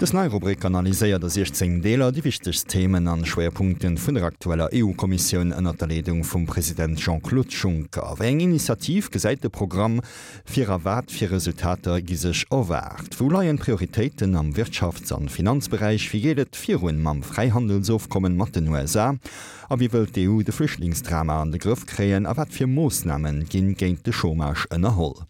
Dës nei Rubrik analyséiert a 16 Deeler déi wichtegst Themen an Schwéierpunkten vun der aktueller EU-Kommissioun ënnert der Leedung vum President Jean-Claude Juncker. Wéi eng Initiative gesäit de Programm vir a wat fir Resultater gi sech erwaart? Wou leien d'Prioritéiten am Wirtschafts an Finanzberäich? Wéi geet et virun mam Fräihandelsofkommen mat den USA? A wéi wëllt d'EU de Flüchtlingsdrama an de Grëff kréien a wat fir Moossname ginn géint de Chômage ënnerholl?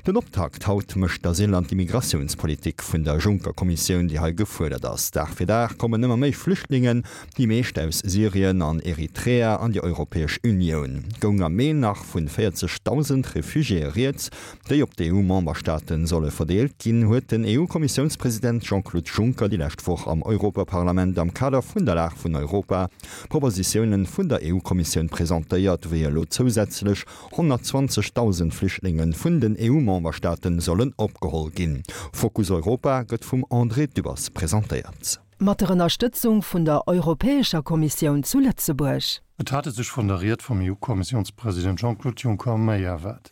Den Optakt haut mécht d'Asyl an d'Immigratiounspolitik vun der Juncker-Kommissioun, déi hei gefuerdert ass. Dag fir Dag kommen ëmmer méi Flüchtlingen, déi meescht aus Syrien an Eritrea, an déi Europäesch Unioun. Goung am Mee nach vun 40.000 Refugiéë rieds, déi op d'EU-Memberstaate solle verdeelt ginn, huet den EU-Kommissiounspresident Jean-Claude Juncker déi lescht Woch am Europaparlament am Kader vun der Lag vun Europa Propositiounen vun der EU-Kommissioun presentéiert, wéi elo zousätzlech 120.000 Flüchtlinge vun den EU-Memberstaate sollen opgeholl ginn. Fokus Europa gëtt vum André Dübbers presentéiert. Mat der Ënnerstëtzung vun der Europäescher Kommissioun zu Lëtzebuerg. Et hat e sech vun der Ried vum EU-Kommissiounspresident Jean-Claude Juncker méi erwaart.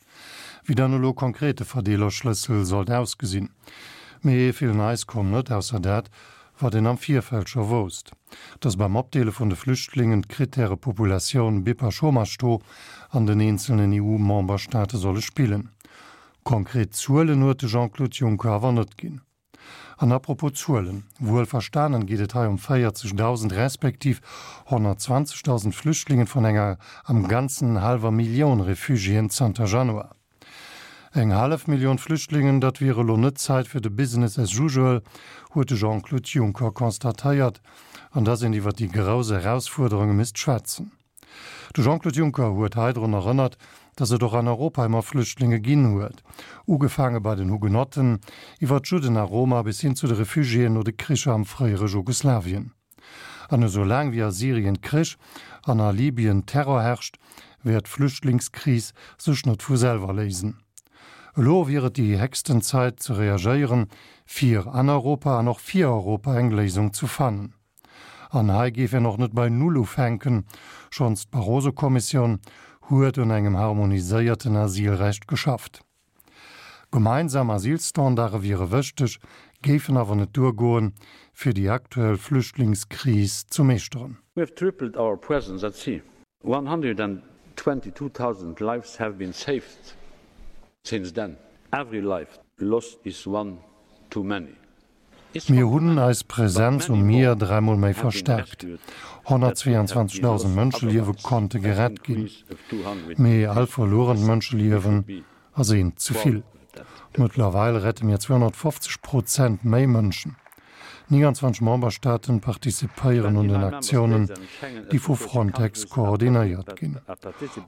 Wéi dann elo konkret de Verdeelerschlëssel sollt ausgesinn. Mee vill Neis koum net, ausser dat, wat een am Virfeld scho wousst, datt beim Opdeele vun de Flüchtlingen d'Krittäre Populatioun, BIP a Chômage-Taux an den eenzelnen EU-Memberstaate solle spillen. Konkret Zuelen huet de Jean-Claude Juncker awer net ginn. An apropos Zuelen, wuel verstanen geet et hei ëm 40.000 respektiv 120.000 Flüchtlingen vun enger am Ganzen hallwer Millioun Refugiéen zanter Januar. Eng hallef Millioun Flüchtlingen, dat wier elo net d'Zäit fir de Business as usual, huet de Jean-Claude Juncker constatéiert, an dass een iwwer déi grouss Erausfuerderunge misst schwätzen. De Jean-Claude Juncker huet hei drun erënnert, datt et och an Europa ëmmer Flüchtlinge ginn huet, ugefaange bei den Hugenotten, iwwer d'Judden a Roma bis hin zu de Refugiéen no de Kricher am fréiere Jugoslawien. An esou laang wéi a Syrien Krich an a Libyen Terror herrscht, wäert d'Flüchtlingskris sech net vu selwer léisen. Elo wier et déi héchsten Zäit ze reagéieren, fir an Europa an och fir Europa eng Léisung ze fannen. An hei géif een och net bei Null ufänken, schonns d'Barroso-Kommissioun huet un engem harmoniséierten Asylrecht geschafft. Gemeinsam Asylstandarde wiere wëchteg, géifen awer net duergoen, fir déi aktuell Flüchtlingskris ze meeschteren. We have tripled our presence at sea. 122,000 lives have been saved since then. Every life lost is one too many. Mir hunn eis Presenz um Mier dräimol méi verstärkt. 122.000 Mënscheliewe konnte gerett ginn. Mee all verluerent Mënscheliewen ass eent ze vill. Mëttlerweil rette mir 250 Prozent méi Mënschen. 29 Memberstaaten participéieren un den Aktiounen, déi vu Frontex koordinéiert ginn.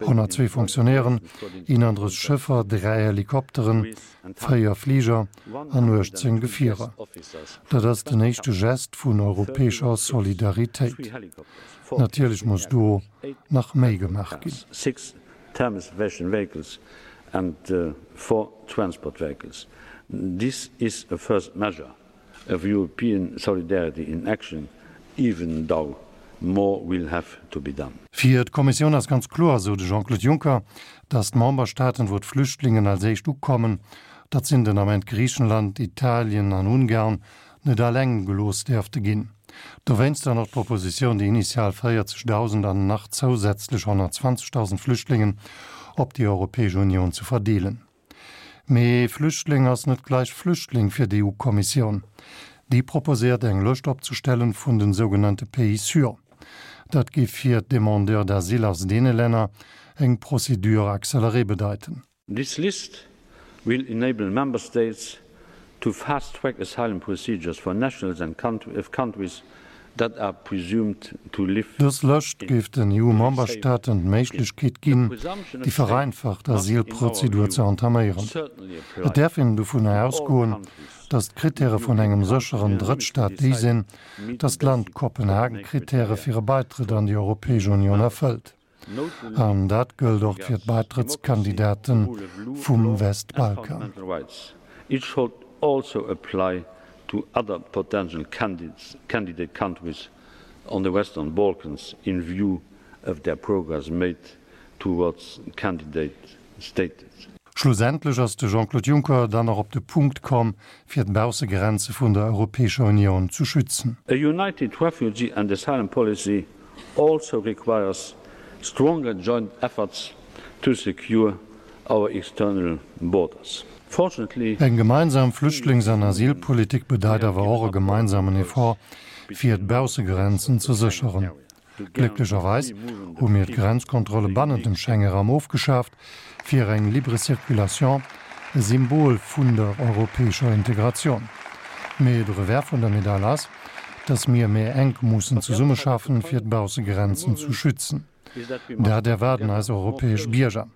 102 Fonctionnairen, 31 Schëffer, 3 Helikopteren, 4 Fliger an 18 Gefierer. Dat ass den éischte Gest vun europäescher Solidaritéit. Natierlech muss do nach méi gemaach ginn. Of European solidarity in action, even though more will have to be done. Fir d'Kommissioun ass ganz kloer, esou de Jean-Claude Juncker, datt d'Memberstaaten, wou d'Flüchtlingen als éischt ukommen, dat sinn den Ament Griichenland, Italien an Ungarn, net alleng gelooss däerfte ginn. Dowéinst dann och d'Propositioun, déi initial 40.000 an nach zousätzlech 120.000 Flüchtlingen op déi Europäesch Unioun ze verdeelen. Mee Flüchtling ass net gleich Flüchtling fir d'EU-Kommissioun. Déi proposéiert eng Lëscht opzestellen vun den sougenannte Pays sûrs. Dat géif fir d'Demandeurs d'asile aus deene Länner eng Procédure accélérée bedeiten. This list will enable Member States to fast-track asylum procedures for nationals and of countries that are presumed to live Dës Lëscht géif den EU-Memberstaaten d'Méiglechkeet ginn, déi vereinfacht Asylprozedur ze entaméieren. Et däerf een dovunner ausgoen, datt d'Krittäre vun engem sécheren Drëttstaat déi sinn, datt d'Land d'Kopenhagen-Krittäre fir e Beitrëtt an déi Europäesch Unioun erfëllt. An dat gëllt och fir d'Baitrëttskandidate vum Westbalkan. It should also apply to other potential candidate countries on the Western Balkans in view of their progress made towards candidate status. Schlussendlech ass de Jean-Claude Juncker dann och op de Punkt komm, fir d'Baussegrenze vun der Europäescher Unioun zu schützen. A united refugee and asylum policy also requires stronger joint efforts to secure our external borders. Fortunately. Eng gemeinsam Flüchtlings an Asylpolitik bedeit awer och e gemeinsamen Effort, fir d'Baussegrenzen ze sécheren. Glécklecherweis hu mir d'Grenzkontrolle bannent dem Schengeraum ofgeschaaft, fir eng libre circulation, e Symbol vun der europäescher Integratioun. Mee de Revers vun der Medail ass, dass mir méi enk mussen zesummeschaffen, fir d'Baussegrenzen zu schützen. Dat erwaarden eis europäesch Bierger.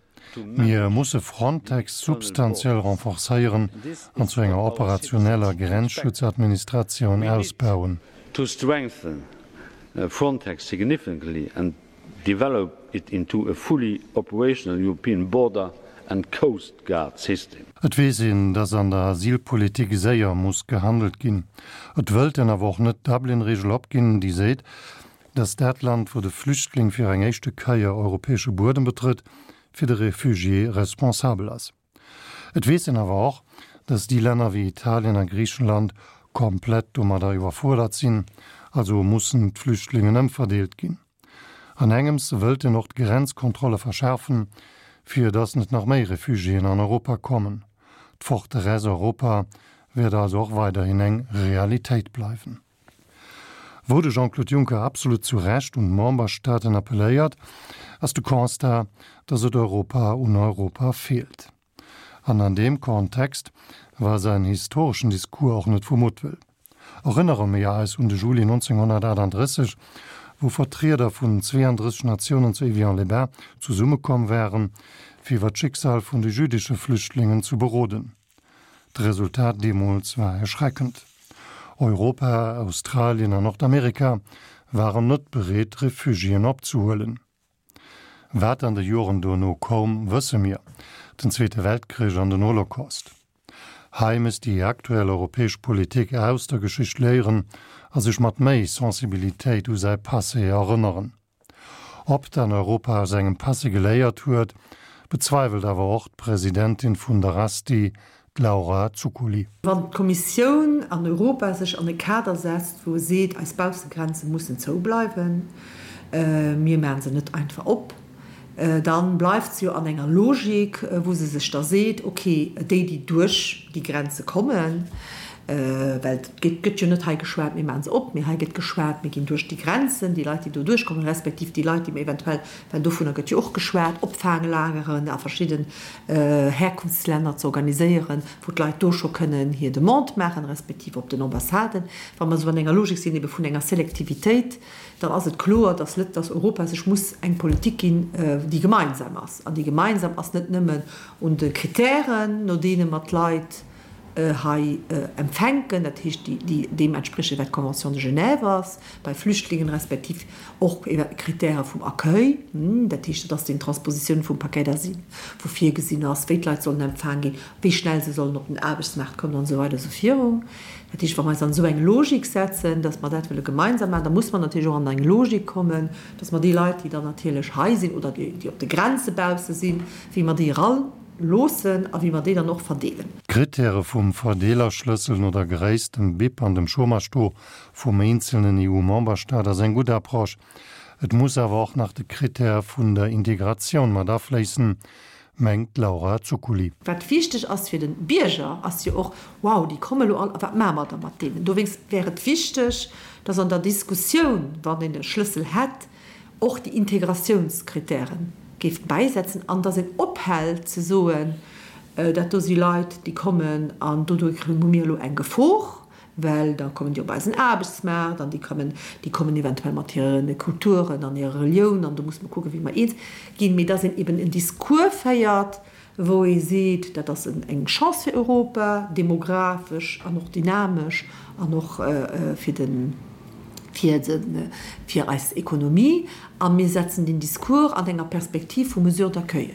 Mir musse Frontex substantiell renforcéieren an zu enger operationeller Grenzschutzadministratioun ausbauen. To strengthen Frontex significantly and develop it into a fully operational European border and coast guard system. Et weess een, dass an der Asylpolitik séier muss gehandelt ginn. Et wëllt een awer och net d'Dublin-Regel opginn, déi seet, dass dat Land, wou de Flüchtling fir eng éischte Keier europäesche Buedem betrëtt, fir de Refugié responsabel ass. Et weess een awer och, dass déi Länner wéi Italien a Griichenland komplett domadder iwwerfuerdert sinn, also mussen d'Flüchtlingen ëmverdeelt ginn. An engems wëllt een och d'Grenzkontrolle verschaarfen, fir dass net nach méi Refugiéen an Europa kommen. D'Forteresse Europa wäert also och weiderhin eng Realitéit bleiwen. Wou de Jean-Claude Juncker absolut zu Recht un d'Memberstaaten appelléiert, ass de Constat, datt et Europa un Europa feelt. An an deem Kontext war säin historeschen Discours och net vu Muttwëll. Erënnere mir eis un de Juli 1938, wou Vertrieder vun 32 Natiounen zu Évian-les-Bains zesummekomm waren, fir iwwer d'Schicksal vun de jüdesche Flüchtlingen zu beroden. D'Resultat deemools war erschreckend. Europa, Australien an Nordamerika waren net bereet, Refugiéen opzehuelen. Wat an de Joren dono koum, wësse mir, den Zweete Weltkrich an den Holocaust. Hei misst déi aktuell europäesch Politik aus der Geschicht léieren a sech mat méi Sensibilitéit u säi Passé erënneren. Ob dann Europa aus engem Passé geléiert huet, bezweiwelt awer och d'Presidentin vun der Asti, d'Laura Zuccoli. Wann d'Kommissioun an Europa sech an e Kader setzt, wou e seet, eis Baussegrenze mussen zou bleiwen, mir maache se net einfach op, da bleift se jo an enger Logik, wou se sech da seet, okay, déi, déi duerch déi Grenze kommen, well et gëtt jo net hei geschwat, mir maache se op, mee hei gëtt geschwat, mir ginn duerch déi Grenzen, déi Leit, déi do duerchkommen, respektiv déi Leit, déi mir eventuell, well dovunner gëtt jo och geschwat, Opfaanglageren a verschidden Herkunftslänner ze organiséieren, wou d'Leit do scho kënnen hir Demande maachen, respektiv op den Ambassaden. Wa mer esou an enger Logik sinn ebe vun enger Selektivitéit, dann ass et kloer, dass Lët-, dass Europa sech muss eng Politik ginn, déi gemeinsam ass. An déi gemeinsam ass net nëmmen un de Kritären, no deene mer d'Leit hei empfänken, dat heescht, déi deem entspriechen, wat d'Convention de Genève ass bei Flüchtlingen, respektiv och Kritäre vum Accueil, dat heescht, dat ass déi Transpositioun vum Paquet d'asile, wou virgesinn ass, wéi d'Leit sollen empfaang ginn, wéi schnell se sollen op den Aarbechtsmaart kommen an esou weider esou virun. Dat heescht, wa mer eis an esou eng Logik setzen, dass mer dat wëlle gemeinsam maachen, da muss mer natierlech och an eng Logik kommen, dass mer déi Leit, déi dann natierlech hei sinn oder déi op de Grenze bausse sinn, wéi mer déi eraloossen a wéi mer déi dann och verdeelen. D'Krittäre vum Verdeelerschlëssel no der Gréisst, dem BIP an dem Chômage-Taux vum eenzelnen EU-Memberstaat ass eng gutt Approche. Et muss awer och nach de Krittär vun der Integratioun mat afléissen, mengt d'Laura Zuccoli. Wat wichteg ass fir de Bierger, ass jo och, Wow, déi komme lo all, a wat maache mer da mat deenen? Dowéinst wär et wichteg, datt an der Diskussioun, wann een e Schlëssel hätt, och déi Integratiounskritäre géif bäisetzen an datt een ophält ze soen, dat do si Leit, déi kommen an doduerch hu mir elo eng Gefor, well da kommen déi op eisen Aarbechtsmaart an déi kommen, déi kommen eventuell mat hire Kulturen an hirer Relioun an do musse mer kucken, wéi mer eens ginn, mee dass een eben en Discours féiert, wou ee seet, dat ass eng Chance fir Europa, demografesch an och dynamesch an och fir de, fir de, fir eis Ekonomie a mir setzen deen Discours an enger Perspektiv vu Mesures d'accueil.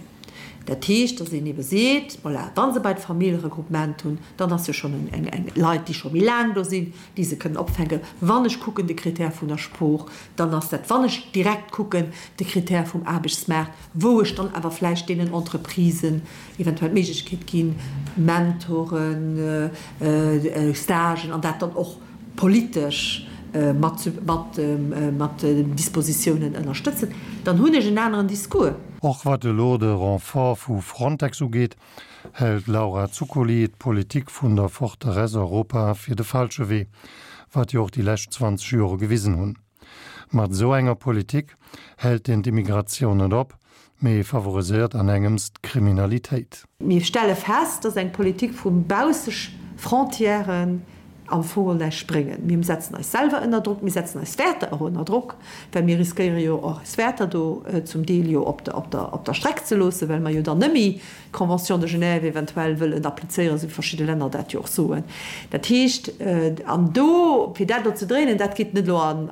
Dat heescht, datt een ebe seet, voilà, wa se bei d'Familljeregroupement hunn, dann ass jo schonn eng, eng, Leit, déi scho méi laang do sinn, déi se kënnen opfänken. Wann ech kucken de Critère vun der Sprooch, dann ass dat, wann ech direkt kucken de Critère vum Aarbechtsmaart, wou ech dann awer vläicht deenen Entreprisen eventuell d'Méiglechkeet ginn, Mentoren, Stagen an dat dann och politesch mat mat Dispositiounen ënnerstëtzen, dann hunn ech en aneren Discours. Och wat elo de Renfort vu Frontex ugeet, hält d'Laura Zuccoli d'Politik vun der Forteresse Europa fir de falsche Wee, wat jo och déi lescht 20 Jore gewisen hunn. Mat esou enger Politik hält een d'Immigratioun net op, mee favoriséiert an engems d'Kriminalitéit. Mir stelle fest, dass eng Politik vu Baussefrontièren am Fong näischt bréngen. Mir setzen eis selwer ënner Drock, mir setzen eis Wäerter och ënner Drock, well mir riskéiere jo och eis Wäerter do zum Deel jo op der Streck ze loossen, well mer jo dann net méi d'Convention de Genève eventuell wëllen applizéieren, esou wéi verschidde Länner dat jo och soen. Dat heescht, an do, fir dat elo ze dréinen, dat geet net elo a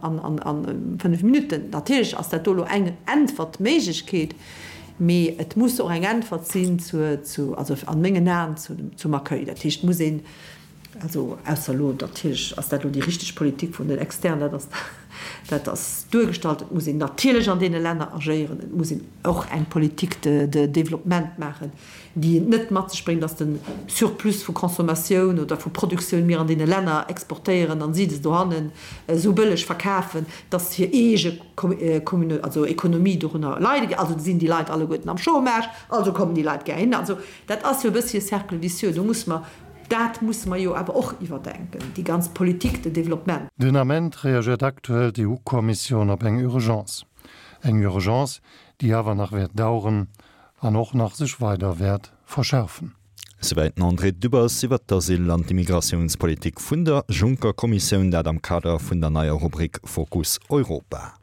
fënnf Minutten. Natierlech ass dat do elo eng Äntwertméiglechkeet, mee et muss och eng Äntwert sinn zur, also a mengen Aen, zum Accueil. Dat heescht, et muss een, Also, ausser elo, natierlech ass dat elo déi richteg Politik vun den Externen, dat ass, dat ass duergestallt. Et muss een natierlech an deene Länner agéieren. Et muss een och eng Politique de, de développement maachen, déi et net mat sech bréngt, dass de Surplus vu Consommatioun oder vu Produktioun mir an deene Länner exportéieren an si se dohannen esou bëlleg verkafen, dass hir eege Communau, also Ekonomie dorunner leide géif. Also sinn déi Leit alleguerten am Chômage, also kommen déi Leit gär hin. Also dat ass jo e bëssi e Cercle vicieux. Do muss mer Dat musse mer jo awer och iwwerdenken, déi ganz Politique de développement. Den Ament reagiert aktuell d'EU-Kommissioun op eng Urgence. Eng Urgence, déi awer nach wäert daueren an och nach sech weider wäert verschärfen. Souwäit den André Dübbers iwwer d'Asyl an d'Immigratiounspolitik vun der Juncker-Kommissioun, dat am Kader vun der neier Rubrik Fokus Europa.